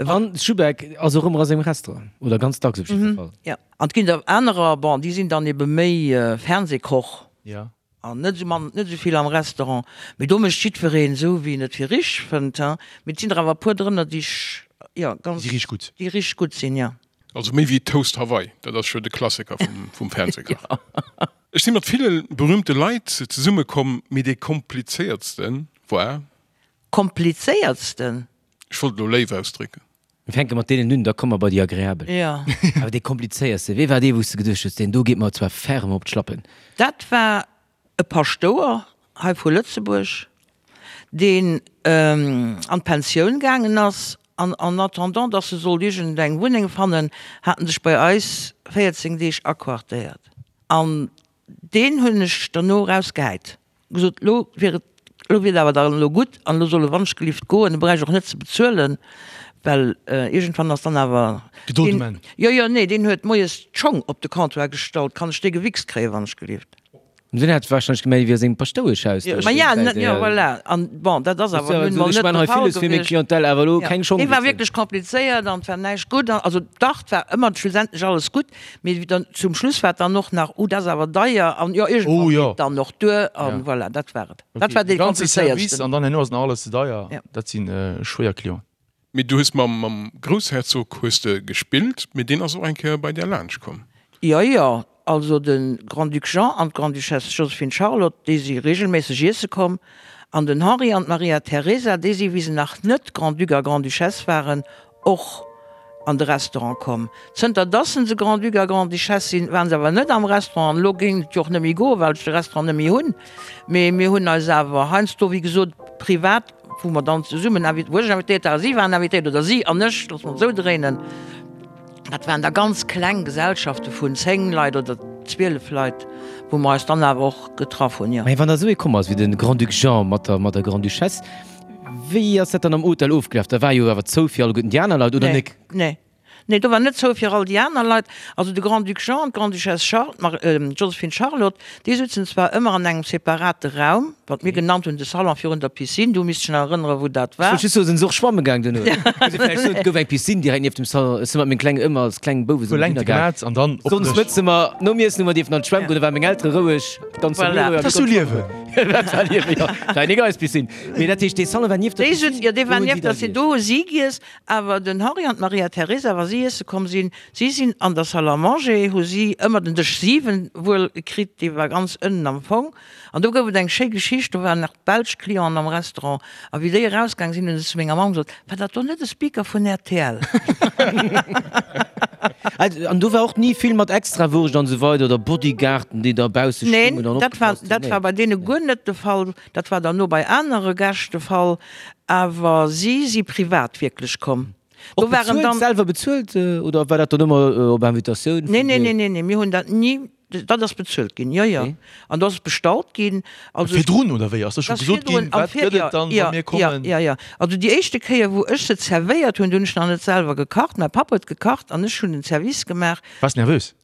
An Schuhbeck ass och ëmmer a sengem Restaurant, oder ganz dacks op jiddwer Fall. Ja, an et ginn der anerer, bon, déi sinn dann ebe méi Fernsehkoch. Ja. An net esou mann, net esou vill am Restaurant. Mee do mécht jiddwereen esou, wéi en et fir richteg fënnt, hein. Mee et sinn der awer e puer drënner, déi ech, jo, ganz. Déi richteg gutt. Déi richteg gutt sinn, jo. Also méi wéi Toast Hawaii, dat ass jo de Klassiker vum Fernsehkach. Ech si mat ville berühmte Leit zesumme komm, mee dee komplizéiertste war. Komplizéiertsten? Ech wollt elo léif ausdrécken. Mir fänke mat deenen un, da komme mer bei déi agreabel. Jo. Awer dee komplizéiertste, wee war dee, wou s de geduecht hues, deen do geet mer zwar ferme op d'Schlappen? Dat war e Paschtouer hei vu Lëtzebuerg, deen an d'Pensioun gaangen ass an en attendant, dass e sollt iergend eng Wunneng fannen, hat en sech bei eis 14 Deeg aquartéiert. An Deen hunn ech derno erausgehäit, gesot, elo wier et, elo wier et awer dann elo gutt an elo soll e wannschgelift goen, e bräicht och net ze bezuelen, well iergendwann ass dann awer Gedold um Enn. Jo, jo, nee, deen huet moies d'Schong op de Comptoir gestallt, kann ech dee gewichst kréien, wannschgelift? Deen hat wahrscheinlech gemengt, et wier seng Paschtoueschhaus do. Ma ja, jo, voilà. An bon, dat ass awer nun mol net de Fall gewiescht. Clientèle awer elo keng Schong Dee war wierklech komplizéiert an et war näischt gutt. Also dach, et war ëmmer schlussendlech alles gutt, Mee dann zum Schluss war et dann och nach, oh dat ass awer deier an jo iergendwann geet et dann och duer an voilà, dat war et. Dat war dee komplizéiertsten. An dann herno ass nach alles ze deier, dat si schwéier Clienten. Mee du hues mam Groussherzog hues de gespillt, mee deen ass och eng Kéier bei där laanscht komm. Jo, jo, also de Grand-Duc Jean an d'Grande-Duchesse Joséphine Charlotte, déi si reegelméisseg iesse komm an den Henri an d'Maria Teresa, déi si wéi se nach net Grand-Duc a Grande-Duchesse waren, och an de Restaurant komm. Zënter dass se Grand-Duc a Grande-Duchesse sinn, waren se awer net am Restaurant. An elo géing et jo och net méi goen, well ech de Restaurant net méi hunn. Mee mir hunn eis awer heiansdo, wéi gesot, privat, wou mer dann zesummen invi-, wou ech invitéiert war a si waren invitéiert, oder si an ech, loosse mer et esou dréinen. Dat waren da ganz kleng Gesellschafte vun 10 Leit oder 12 Leit, wou mer eis dann awer och getraff hunn, jo. Mä wann da esou ee komm ass wéi de Grand-Duc Jean mat der, mat der Grande-Duchesse, Wéi ass dat dann am Hotel ofgelaf? Da war jo awer zou fir alleguerten déi aner Leit, oder nek? Nee, nee, do war net zou fir all déi aner Leit. Also de Grand-Duc Jean an d'Grande-Duchesse Charl-, Mar-, Joséphine Charlotte, déi sutzen zwar ëmmer an engem separate Raum, wat mir genannt hunn de Salon virun der Piscine, do misst ech nach erënneren, wou dat war. Ech wollt just soen, sinn se och schwamme gaang duerno? Muss ee vläicht soen, et gouf eng Piscine direkt nieft dem Salon. Ech si mat menge Klengen ëmmer als kleng Bouwe sinn mer hinner gaang. An dann op Sonns mëtze mer nom Iessen hu mer dierfen an d'Schwämm goen, da ware meng Eltere roueg, d'ganz Famille roueg a mir Dat ass sou konnte Liewen! Dat war Liewen, jo. War eng eis Piscine. Mee dat heescht, dee Salon war nieft der Déi Piscine, sut, jo, dee do war hunn si nieft da der Piscine, giess. do hu si giess. Awer den Henri an d'Maria Teresa, wa si iesse komm sinn, si sinn an der Salle à manger, hu si ëmmer den Dësch 7 wuel kritt, dee war ganz ënnen am Fong. An do gouf et eng schéi Geschicht, do waren nach belsch Clienten am Restaurant, a wéi déi erausgaang sinn, hunn se zu menger Mamm gesot, War dat do net e Speaker vun rtl? An do war och ni vill mat Extrawurscht an esou weider oder Bodyguarden, déi da bausse Neen, stungen an dat war, opgepasst hunn? dat war bei deene guer net de Fall. Dat war dann no bei anere Gäscht de Fall, awer si si privat wierklech komm. Do Och waren bezuelt, dann. selwer bezuelt oder war dat dann ëmmer op Invitatioun vun Nee, nee, nee, nee, nee, mir hunn dat ni, dat ass bezuelt ginn, jo, jo. An do ass et bestallt ginn. Also ech. Virdrun oder wéi? Ass da scho gesot ginn, wat gëtt et dann, wa mir kommen? Jo, jo, jo. Also déi éischte Kéier, wou ech se zerwéiert hunn, do hunn ech nach net selwer gekacht. Mäi Papp huet gekacht an ech hunn den Service gemaach. Waars nervös?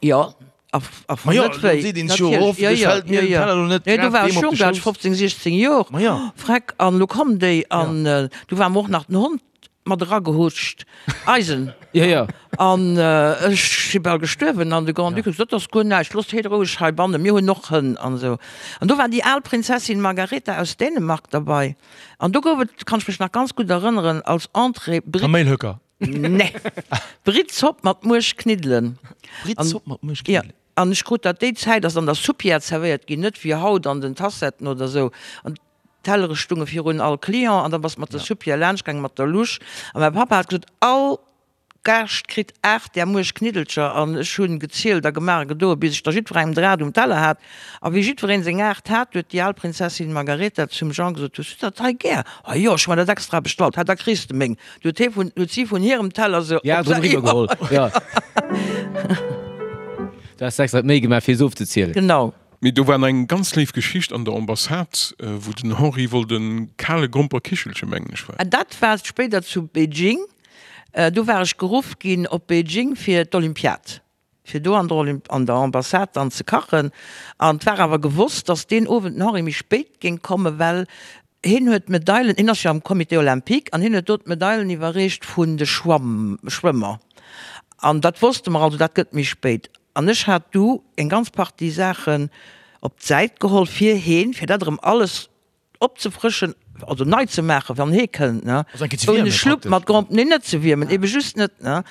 Jo, a a Ma jo, net wéi. Seet een sech jo oft, ech fält mir den Teller lo net grad deem op de Schouss. Do war ech jonk, do hat ech 15, 16 Joer. Ma jo. Freck, an lo kommen déi an du war mer och nach den Hond mat eragehutscht, eisen. Jo, jo. An ech si bal gestuerwen an de Grand-Duc huet gesot, dat ass guer näischt, loosst hee roueg heibannen, mir hunn och Hënn an esou. An do war déi al Prinzessin Margareta aus Dänemark derbei an do gouf et, kann ech mech nach ganz gutt erënneren, als Entrée Britt. Kaméilhöcker. Nee. Brittzopp mat Muerchkniddelen. Brittzopp mat Muerchkniddelen? Ja. An ech krut dat, déi Zäit ass an der Soupière zerwéiert ginn, net wéi haut an den Tassetten oder esou. An d'Tellere stunge virun all Client an da bass mat der Soupière laanscht gaangen, mat der Louche. A mäi Pappa hat gesot, all Gaascht kritt 8 där Muerchkniddelcher. An ech hunn gezielt a gemaach a gedoen, bis ech der jiddwerengem der 8 um Teller hat. A wéi jiddwereen seng 8 hat, huet déi al Prinzessin Margareta zum Jean gesot, Hues du dat hei gär? Ah jo, ech hu mer dat extra bestallt. Ha, da kriss de meng. Du huet hie vun, huet si vun hirem Teller se Ja, op drëm eriwwer geholl. Ja. Du has extra d'Méi gemaach, fir se ofzezielen. Genau. Mee do war nach eng ganz léif Geschicht an der Ambassade, wou den Henri wollt e kale Gromperkichelche, mengen ech war. Dat war spéider zu Beijing. Do war ech geruff ginn op Beijing fir d'Olympiad. fir do an der an der Ambassade dann ze kachen. An et war awer gewosst, datt deen Owend den Henri méi spéit géing kommen, well hien huet d'Medailen, hien ass jo am Comité olympique, an hien huet do d'Medailen iwwerreecht vun de Schwamm Schwëmmer. An dat wosste mer also, dat gëtt méi spéit. An ech hat du eng ganz Partie Saachen. op d'Säit geholl fir heen, fir dat erëm alles opzefrëschen, also nei ze maachen, wann hee kënnt, ne? Also eng Kéier ze Ouni wiermen Schlupp praktesch. mat Grand, nee, net ze wiermen, ebe just net, ne?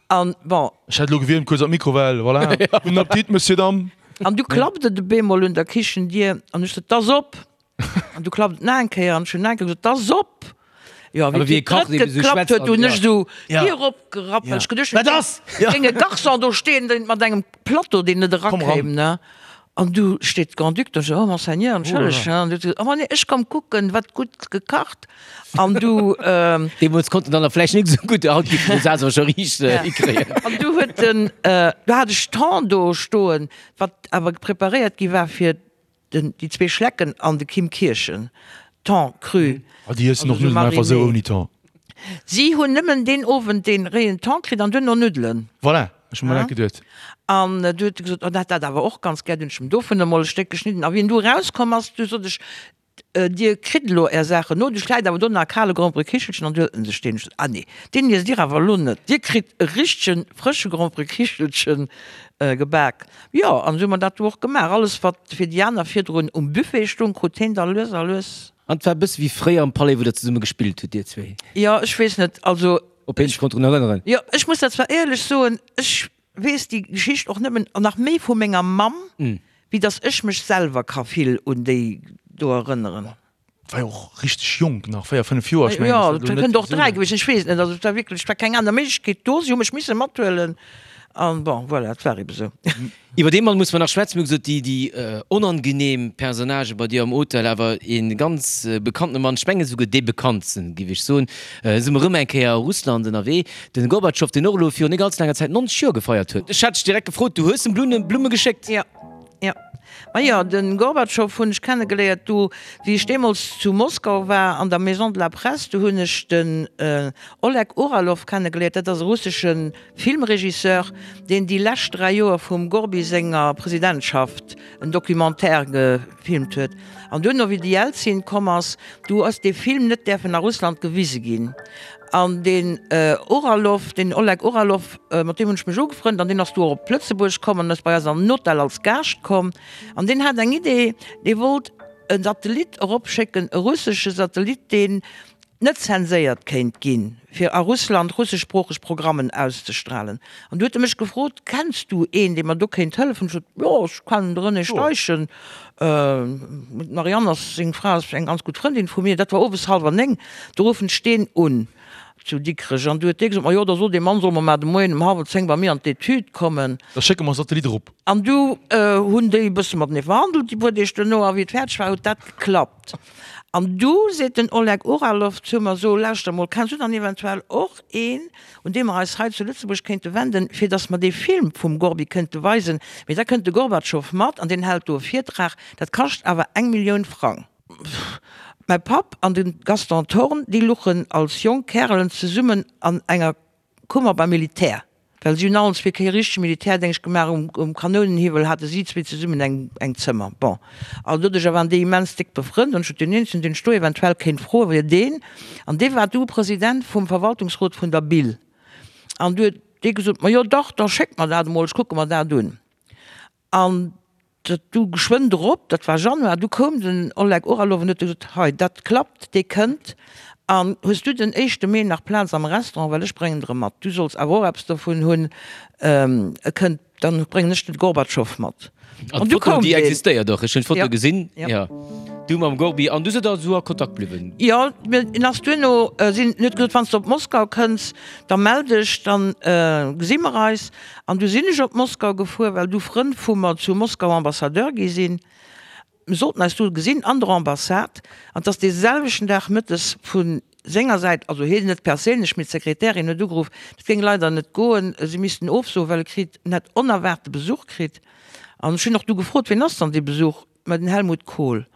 An bon. Ech hätt elo gewiermt, kuerz an d'Mikrowell, voilà. Gudden Appetit, Monsieur, Dame. An du klappt et op eemol un der Kichendier an ech sot, 't ass op! An du klappt et nach eng Kéier an ech hunn nach eng Kéier gesot, 't ass op! Jo, Awer wéi wéi e déi kacht, drëtt eben esou geklappt schwätzt huet, an hunn ja. ech esou Ja. d'Dier opgerappt, well ech geduecht hunn, Wat ass? Ja. géing e Garçon do stehen, deen mat engem Plateau, deen net Komm eran. erakéim, ne? An du steet d'Grand-Duc do, ech, oh Monseigneur, entschëlleg, Oh là là. an du huet se gesot, oh nee, ech komm kucken, wat gutt gekacht. An du. Deemools konnten der nach vläicht net esou gutt, haut géifen se dat awer scho riicht hikréien. An du huet den, du hat ech Thon do stoen, wat awer preparéiert gi war fir Den, déi zwee Schlecken an de Kim Kirchen. Thon cru. Ah, déi iessen och Nuddelen einfach esou ouni Thon. Si hunn nëmmen deen Owend dee réien Thon kritt an duerno Nuddelen. Voilà, ech hu mer dat geduet. An du huet e gesot, oh, en hätt dat awer och ganz gär. Dunn hunn ech em dovun emol e Stéck geschnidden. A wéi en du erauskomm ass, du sot ech, Dir kritt elo Är Saachen no, duerch läit awer do nach e kale Gromperekichelchen. An du huet en sech deen. Ech sot, Ah nee, deen iesst Dir awer elo net. Dir kritt e richtegen, frësche Gromperekichelchen gebak. Jo, an esou hu mer dat du och gemaach. Alles, wat fir déi aner virdrun um Buffet stung, krut heen da lues a lues. An et war e bësse wéi fréier am Palais, wou der zesumme gespillt hutt, dir zwee? Jo, ech weess net, also. Op heen sech konnt drun erënneren. Jo, ech muss dat zwar éierlech soen, ech weess déi Geschicht och nëmmen, an nach méi vu menger Mamm, wéi datt ech mech selwer ka vill un déi do erënneren. War jo och richteg jonk nach, 4, 5 Joer, ech mengen, Jo, dat ass elo et net kënnt och esou 3 laang. gewiescht sinn, ech weess et net. Also et war wierklech, et war keng aner Méiglechkeet do, si hu mech misse mathuelen an bon, voilà, et war ebe sou. Iwwer dee Mann musse mer nach schwätzen. Mir hu gesot, déi, déi onangenehm Personnagë bei dir am Hotel, awer ee ganz bekanntene Mann, ech mengen esouguer dee bekanntsten, géif ech soen, si mer erëm eng Kéier a Russland ënnerwee, de Gorbatschow, deen och elo virun net allze laanger Zäit 90 Joer gefeiert huet. Ech hat dech direkt gefrot, du hues em Blumme geschéckt? Jo. Jo, majo, de Gorbatschow hunn ech kennegeléiert do, wéi ech deemools zu Moskau war, an der Maison de la Presse, do hunn ech den Oleg Uralov kennegeléiert, dat ass e russesche Filmregisseur, deen déi lescht 3 Joer vum Gorbi senger Presidentschaft en Documentaire gefilmt huet. An duerno, wéi de Jelzin komm ass, du ass dee Film net däerfen a Russland gewise ginn. An deen Uralov, deen Oleg Uralov, mat deem hunn ech mech ugefrënnt an deen ass du och op Lëtzebuerg komm an ass bei eis an den Hotel als Gaascht komm. An deen hat eng Idee, dee wollt e Satellit eropschécken, e russesche Satellit, deen net zenséiert kéint ginn, fir a Russland russeschsproocheg Programmen auszestralen. An du huet e mech gefrot, Kenns du een, dee mer do kéint hëllefen? Ech sot, Jo, ech kennen de René Steichen. D'Marianne ass seng Fra, ass eng ganz gutt Frëndin vu mir. Dat war owes hallwer 9, do ruffen ech deen un zu Dikrech an du huet dee gesot, Ma jo, da sot dee Mann, soll mer mar de Moien um hallwer 10 bei mir an d'Etüd kommen. Da schécke mer e Satellit erop. An du hunn déi e bësse matenee verhandelt déi puer Deeg duerno a wéi et fäerdeg war, huet dat geklappt. An du seet den Oleg Uralov zu mer, So, lauschter mol, kenns du dann eventuell och een, un dee mer eis hei zu Lëtzebuerg kéinte wenden, fir datt mer dee Film vum Gorbi kënnte weisen, mee da kënnt de Gorbatschow mat an deen hält do e Virtrag, dat kascht awer eng Millioun Frang. Mäi Papp an de Gaston Thorn, déi luchen als jonk Kärelen zesummen an enger Kummer beim Militär, well si hunn allen zwee kee richtege Militärdéngscht gemaach, um Kanounenhiwwel hate si zwee zesummen eng Zëmmer. Bon, also doduercher waren déi immens déck befrënnt an ech sot, deen eenzegen, deen ech do eventuell kéint froen, wier deen. An dee war du President vum Verwaltungsrot vun der BIL. An du huet dee gesot, Ma jo dach, da schéck mer dat emol, ech kucke mer dat un. An dat du geschwënn drop, dat war Januar, du koum den Oleg Oralov an huet gesot, Hei, dat klappt, dee kënnt. An hues du den éischte Mee nach Plaz am Restaurant, well ech bréngen der e mat, du solls awer och eppes dovun hunn, e kënnt. Dann bréngen ech den Gorbatschow mat. An d'Foto, déi existéiert och, ech hunn d'Foto gesinn, jo, du mam Gorbi, an du sidd da esou a Kontakt bliwwen? Jo, en ass duerno, sinn, en huet gesot, wann s de op Moskau kënns, da mell dech, dann gesi mer eis. An du sinn ech op Moskau gefuer, well du Frënn vu mer zu Moskau Ambassadeur gi sinn. Mir sollten eis do gesinn an der Ambassade, an 't ass dee selwechten Dag mëttes vu senger Säit, also hien net perséinlech, mee d'Sekretärin huet ugeruff, dat géing leider net goen, si missten ofsoen, well e kritt, en hätt onerwaarte Besuch kritt. An ech hunn och du gefrot, wien ass dann dee Besuch? Mä den Helmut Kohl.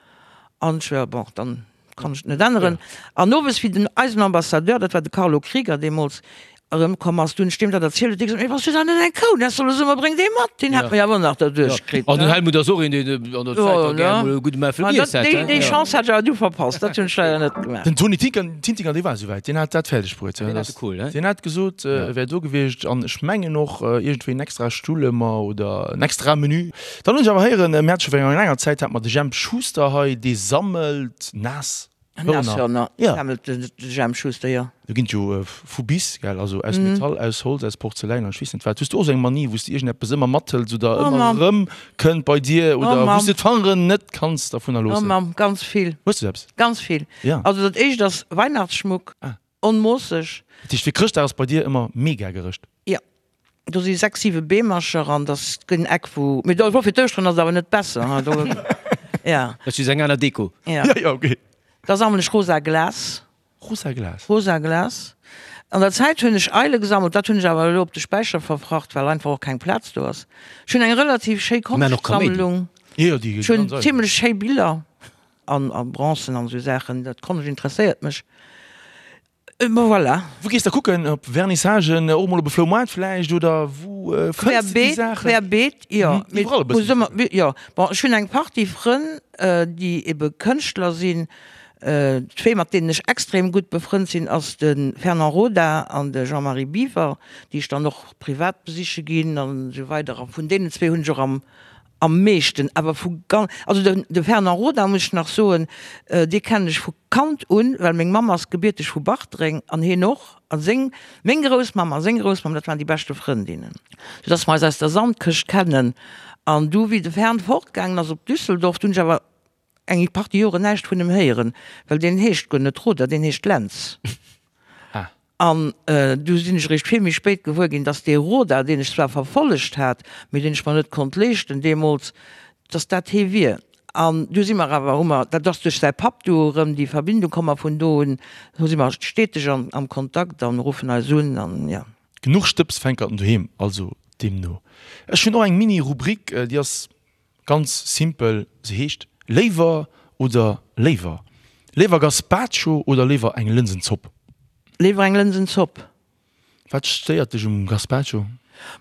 An ech, jo, bon, dann kann ech et net änneren. An owes, wéi den eisen Ambassadeur, dat war de Carlo Krieger deemools. Erëmkomm ass, du hunn ech deem dat erzielt, huet dee gesot, Mee bass du dann net eng Kou, dat soll e Summer, bréng dee mat, deen hätt mer jo awer nach derduerch kritt. An den Helmut ass och een, deen an der Zäit da gär emol e gudde Mäffel giess hätt. Déi Chance hat ech awer du verpasst, dat hunn ech leider net gemaach. Den Tony Tintinger, dee war esouwäit, deen hat dat fäerdeg bruet. Deen hat de Kohl, he? Deen hat gesot, e wär do gewiescht an ech mengen och iergendwéi en extra Stull ëmmer oder en extra Menü. Dann hunn ech awer héieren, mir hate scho virun enger laanger Zäit, hat mer de Jemp Schuster hei, dee sammelt naass Nashörner sammelt de Jemp Schuster, jo. Do ginn et jo vu bis, gell, also aus Metall, aus Holz, aus Porzeläin an ech weess net wat. Hues du och esou eng Manie, wou s de iergendeppes ëmmer mathëls oder ëmmer erëm kënnt bei dir oder wou s de d'Fangeren net kanns dervunner loossen? Oh Mamm, ganz vill. Hues du eppes? Ganz vill. Also dat éischt ass Weihnachtsschmuck, onmoosseg. Dat heescht fir Chrëschtdag ass bei dir ëmmer mega gerëscht? Jo. Do si 6, 7 Beemercher an dass gëtt en Eck wou, mee do fir d'Ouschteren ass et awer net besser hein do, ja. Dat ass just eng aner Deko. Ja. Ja, ja, okay. Da sammelen ech rosa Glas. Rosa Glas? Rosa Glas. An der Zäit hunn ech Eile gesammelt, dat hunn ech awer elo op de Späicher verfracht, well einfach och keng Plaz do ass. Ech hunn eng relativ schéi Konschtsammlung. Jo, jo, déi Ech hunn zimlech schéi Biller an a Bronzen an esou Saachen, dat Konscht interesséiert mech. Bon voilà. Wou gees de kucken? Op Vernissagen, och mol op e Floumaart vläicht oder wou fënns de déi Saachen? Querbeet, jo. Iwwerall e bëssen. Jo, bon ech hunn eng Partie Frënn, déi ebe Kënschtler sinn. Zwee mat deenen ech extrem gutt befrënnt sinn ass de Fernand Roda an de Jean-Marie Biwer, déi ech dann och privat besiche ginn an esou weider. A vun deenen zwee hunn ech och am Am meeschten awer vu gan-, also den, de Fernand Roda muss ech nach soen, dee kennen ech vu Kand un, well meng Mamm ass gebierteg vu Bartreng an hien och, a seng, meng Groussmamm a seng Groussmamm, dat waren déi beschte Frëndinnen, soudass mer eis aus der Sandkëscht kennen. An du wéi de Fern fortgaangen ass op Düsseldorf, du hunn ech awer eng Partie Joren näischt vun em héieren, well deen heescht guer net Roder, deen heescht Lentz. An du sinn ech eréischt vill méi spéit gewuer ginn, dass dee Roda, deen ech zwar verfollegt hat, mee deen ech mer net konnt leeschten deemools, dass dat hee wier. An du si mer awer, hu mer, dat ass duerch säi Papp du erëm déi Verbindung komm a vun do un hu si mer steteg am Kontakt an ruffen eis un an jo. Genuch Stëbsfänkerten doheem also deemno. Ech hunn och eng Mini-Rubrik, déi ass Ganz simpel, se heescht Léiwer oder léiwer? Léiwer Gazpacho oder léiwer eng Lënsenzopp? Léiwer eng Lënsenzopp. Wat stéiert dech um Gazpacho?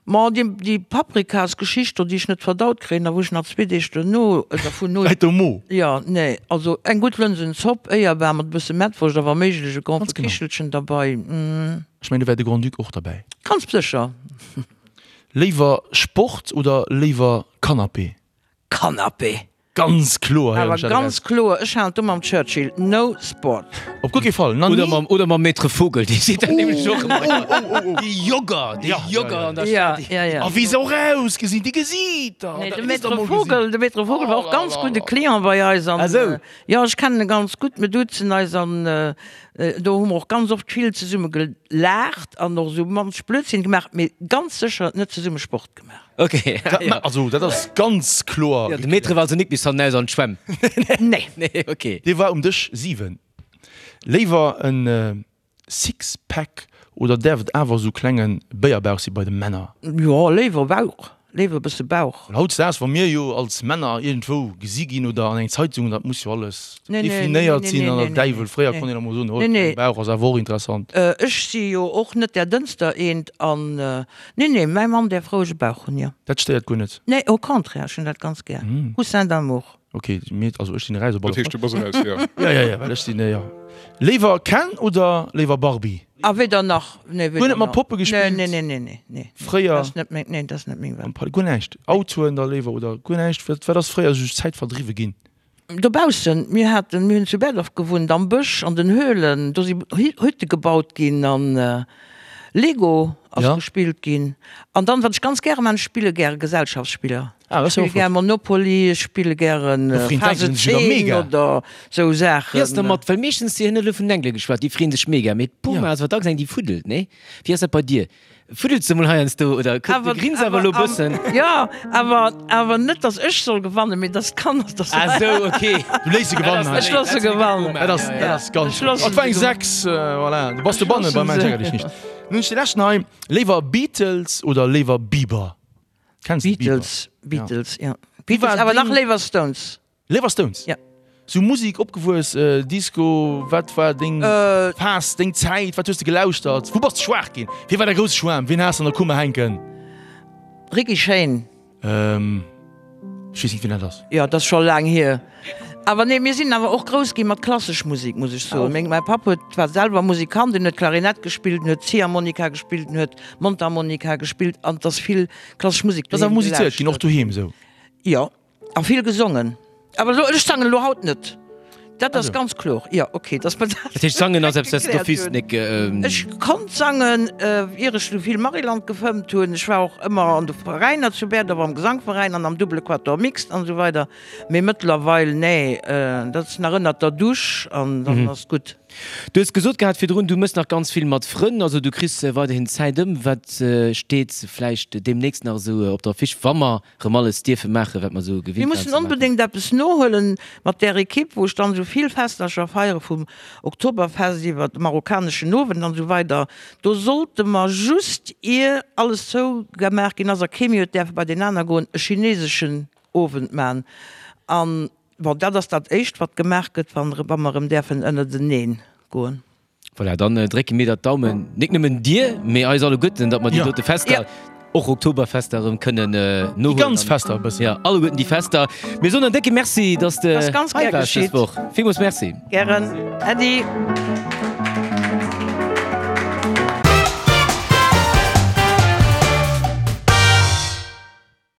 Ma déi Paprikasgeschicht do, déi ech net verdaut kréien a wou ech nach zwee Deeg duerno dervun hu. Läit um Mo. Jo, nee, also eng gutt Lënsenzopp, éierbar mat e bësse Mettwurscht a wa méiglech e Grand Kichelchen derbei. Ech mengen, do wär de Grand-Duc och derbäi. Ganz sécher. Léiwer Sport oder léiwer Canapé? Canapé! Ganz kloer, héieren ech dat eraus. Awer ganz kloer, ech halen do mam Churchill, no sport. Op guer kee Fall, na ni. Oder mam Maître Vogel, dee seet dat nämlech och ëmmer. Déi Jogger, déi Jogger an der Stad. Ja, ja. A wéi se och ausgesinn, déi Gesiiter! Nee, de Maître Vogel, de Maître Vogel war och ganz gudde Client bei eis an. Ah sou. Jo, ech kennen e ganz gutt, mir duzen eis an do hu mer och ganz oft vill zesumme gelaacht an och esou munch Blödsinn gemaach, mee ganz sécher net zesumme Sport gemaach. Ok, ja. Also dat ass ganz kloer. Jo, de Maître war also nik bis hannenaus an d'Schwämm. Nee. Nee, ok. Dee war um Dësch 7. Léiwer en Sixpack oder däerf et awer esou klenge Béierbauch si bei de Männer? Jo, léiwer Bauch, léiwer e bësse Bauch. Well hautdesdaags, wa mir jo als Männer iergendwou gesi ginn oder an eng Zeitung, dat muss jo alles definéiert sinn an der Däiwel. Fréier konnt een emol soen, oh, klenge Bauch ass awer och interessant. Ech si jo och net där dënnster eent an, nee, nee, mäi Mann däerf roueg e Bauch hunn, jo. Dat stéiert guer net? Nee, au contraire, ech hunn dat ganz gär. Coussin d'amour. Ok, mir, also ech sinn eraus op alle Fall. Dat heescht, du bass eraus, jo. Ja, ja, ja, well ech sinn, jo. Léiwer Ken oder léiwer Barbie? Ah, weder nach. Nee, weder nach. Guer net mat Poppe gespillt? Nee, nee, nee, nee, nee. Fréier? Dat ass net meng, nee, dat ass net meng Welt. Guer näischt? Autoen da léiwer oder guer näischt? Wat, wat ass fréier esou Zäit verdriwwe ginn? Dobaussen, mir haten, mir hunn zu Berdorf gewunnt, am Bësch, an den Höhlen, do si Hütte gebaut ginn an Lego ass gespillt ginn. An dann, wat ech ganz gäre man, ech spille gäre Gesellschaftsspiller. Ah, ech spille gär Monopoly, ech spille gären Phase 10 oder sou Saachen. Wéi ass dermat, well meeschtens, Dir hutt elo vun den Engele geschwat, déi freeën sech mega, mee d'Puma ass awer dacks eng, déi fuddelt, nee? Wéi ass dat bei dir? Fuddels de mol heiansdo oder du grins awer elo bëssen? Jo, awer, awer net, datt ech soll gewannen, mee datt d'Kanner dat. Ah sou, ok. Du léiss se gewannen hei. Ech looss se gewannen. Dat ass, dat ass ganz gutt. Et war eng 6, voilà. Du bass dobannen beim Mensch ärger dech nicht. Nun hunn ech de leschten hei. Léiwer Beatles oder léiwer Bieber? Kenns de Bieber? Beatles, Beatles, ja. Beatles, awer nach léiwer Stones. Léiwer Stones? Ja. Sou Musik opgewuess, Disco, wat war deng Phas, deng Zäit, wat hues de gelauschtert, wou bass de schwaach ginn, wie war däi grousse Schwaarm, wien has de an der Kummer hänken? Ricky Shane. Ech weess net wien dat ass. Jo, dat ass scho laang hier. Awer nee, mir sinn awer och grouss gi mat klassesch Musik, muss ech soen. Meng, mäi Papp huet, war selwer Musikant, en huet Klarinett gespillt, en huet Ziehharmonika gespillt, en huet Mondharmonika gespillt an et ass vill klassesch Musik doheem gelauschtert. Ass awer musizéiert ginn, och doheem esou? Jo. A vill gesongen. Awer elo, ech sangen elo haut net. Dat ass ganz kloer. Jo, ok, dass mer dat. Dat heescht, sangen ass eppes, wat s de d'office nik. Ech konnt sangen, ier ech du vill Maryland gefëmmt hunn. Ech war och ëmmer an de Veräiner zu Bäerdorf, am Gesangveräin an am Double Quatuor Mixte an esou weider. Mee mëttlerweil, nee, dat ass nach ënnert der Dusch an dann ass gutt. Du hues gesot gehat virdrun, du mëss nach ganz vill mat Frënn, also du kriss weiderhin Zäit ëm. Wat steet vläicht deemnächst nach esou op der Affiche, wa mer Rëm alles dierfe maachen, wat mer esou gewinnt waren ze maachen. Mir mussen onbedéngt eppes nohuelen mat där Equipe, wou ech dann esou vill Festercher feiere, vum Oktoberfest iwwer de marokkaneschen Owend an esou weider. Do sollte mer just, ier alles zougemaach ginn ass a kee méi huet däerfe bei deen aner goen, e chineseschen Owend man. An, bon, dat ass dat éischt, wat gemaach gëtt, wa mer erëm däerfen ënnerteneen goen. Voilà, dann drécke mir der d'Daumen, nik nëmmen dir, mee eis alleguerten, datt mer déi dote Fester, och Oktoberfester erëm kënnen nohuelen. Déi ganz Fester e bëssen. Jo, alleguerten déi Fester. Mir soen en décke Merci, datt s de hei waars dës Woch. Villmools Merci. Gären. Äddi.